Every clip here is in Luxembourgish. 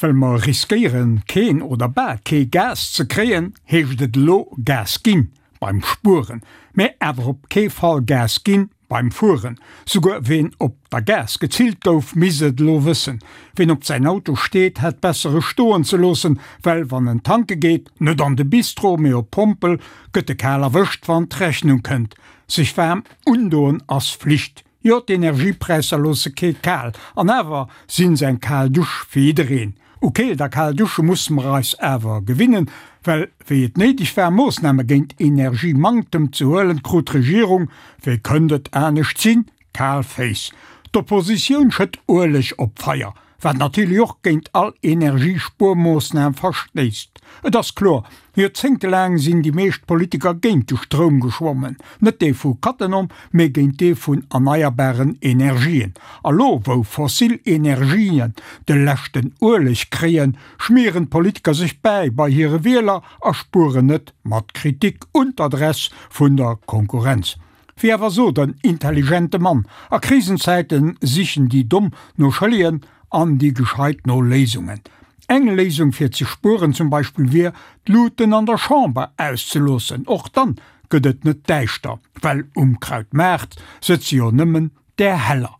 Well mer riskéieren, keen oder bal kee Gas ze kréien, heescht et elo Gas ginn beim Spueren, mä awer op kee Fall Gas ginn beim Fueren. Souguer ween op der Gaass gezillt gouf, misst et elo wëssen. Ween op säin Auto steet, hätt besser e stoen ze loossen, well wann en tanke geet, net an de Bistro, mee op d'Pompel, gëtt e kal erwëscht, wann d'Rechnung kënnt. Sech waarm undoen ass Flicht. Jo, d'Energiepräisser loosse kee kal, an awer sinn se eng kal Dusch fir jiddereen. U Keelt a kal Dusche musse mer eis awer gewinnen, well wéi et néideg war Moossname géint Energiemanktem ze huelen, krut d'Regierung, wéi kënnt et anescht sinn, kal Féiss. D'Oppositioun schëtt Ueleg op d'Feier, wat natierlech och géint all Energiespuermoossnam verstéisst. Et ass kloer, Joerzéngtelaang sinn déi meescht Politiker géint de Stroum geschwommen, net dee vu Cattenom, mee géint dee vun erneierbaren Energien. A lo, wou fossil Energien de leschten Ueleg kréien, schmieren d'Politiker sech bäi bei hire Wieler a spueren net mat Kritik un d'Adress vun der Konkurrenz. Wéi awer sot en intelligente Mann, a Krisenzäite sichen déi Domm no Schëllegen an déi Gescheit no Léisungen. Eng Léisung fir ze spueren zum Beispill wier, d'Luuten an der Chamber auszeloossen. Och dann gëtt et net däischter, well um Krautmaart sëtze jo nëmmen där Heller.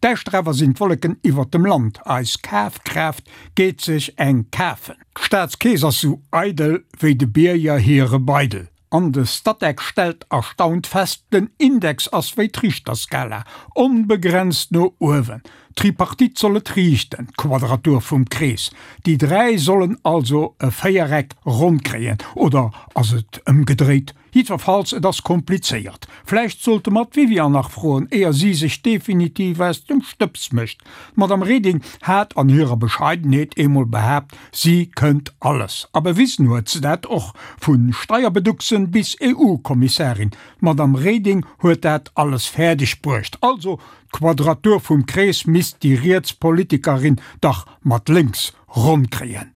Däischter awer sinn d'Wolleken iwwert dem Land, eis Kafkraaft geet sech eng kafen. D'Staatskeess ass sou eidel wéi de Bierger hire Beidel. An de Statec stellt erstaunt fest, den Index ass wéi d'Richterskala, onbegrenzt no uewen. D'Tripartite soll et riichten, d'Quadratur vum Krees. Déi 3 sollen also e Véiereck ronn kréien, oder ass et ëmgedréit? Jiddwerfalls, et ass komplizéiert. Vläicht sollte mer d'Viviane nach froen, éier si sech definitiv aus dem Stëbs mécht. D'Madame Reding hat an hirer Bescheidenheet eemol behaapt, si kënnt alles. A bewisen huet se dat och, vu Steierbeducksen bis EU-Kommissarin. D'Madame Reding huet dat alles fäerdeg bruecht. Also, d'Quadratur vum Krees misst déi riets Politikerin dach mat lénks ronn kréien.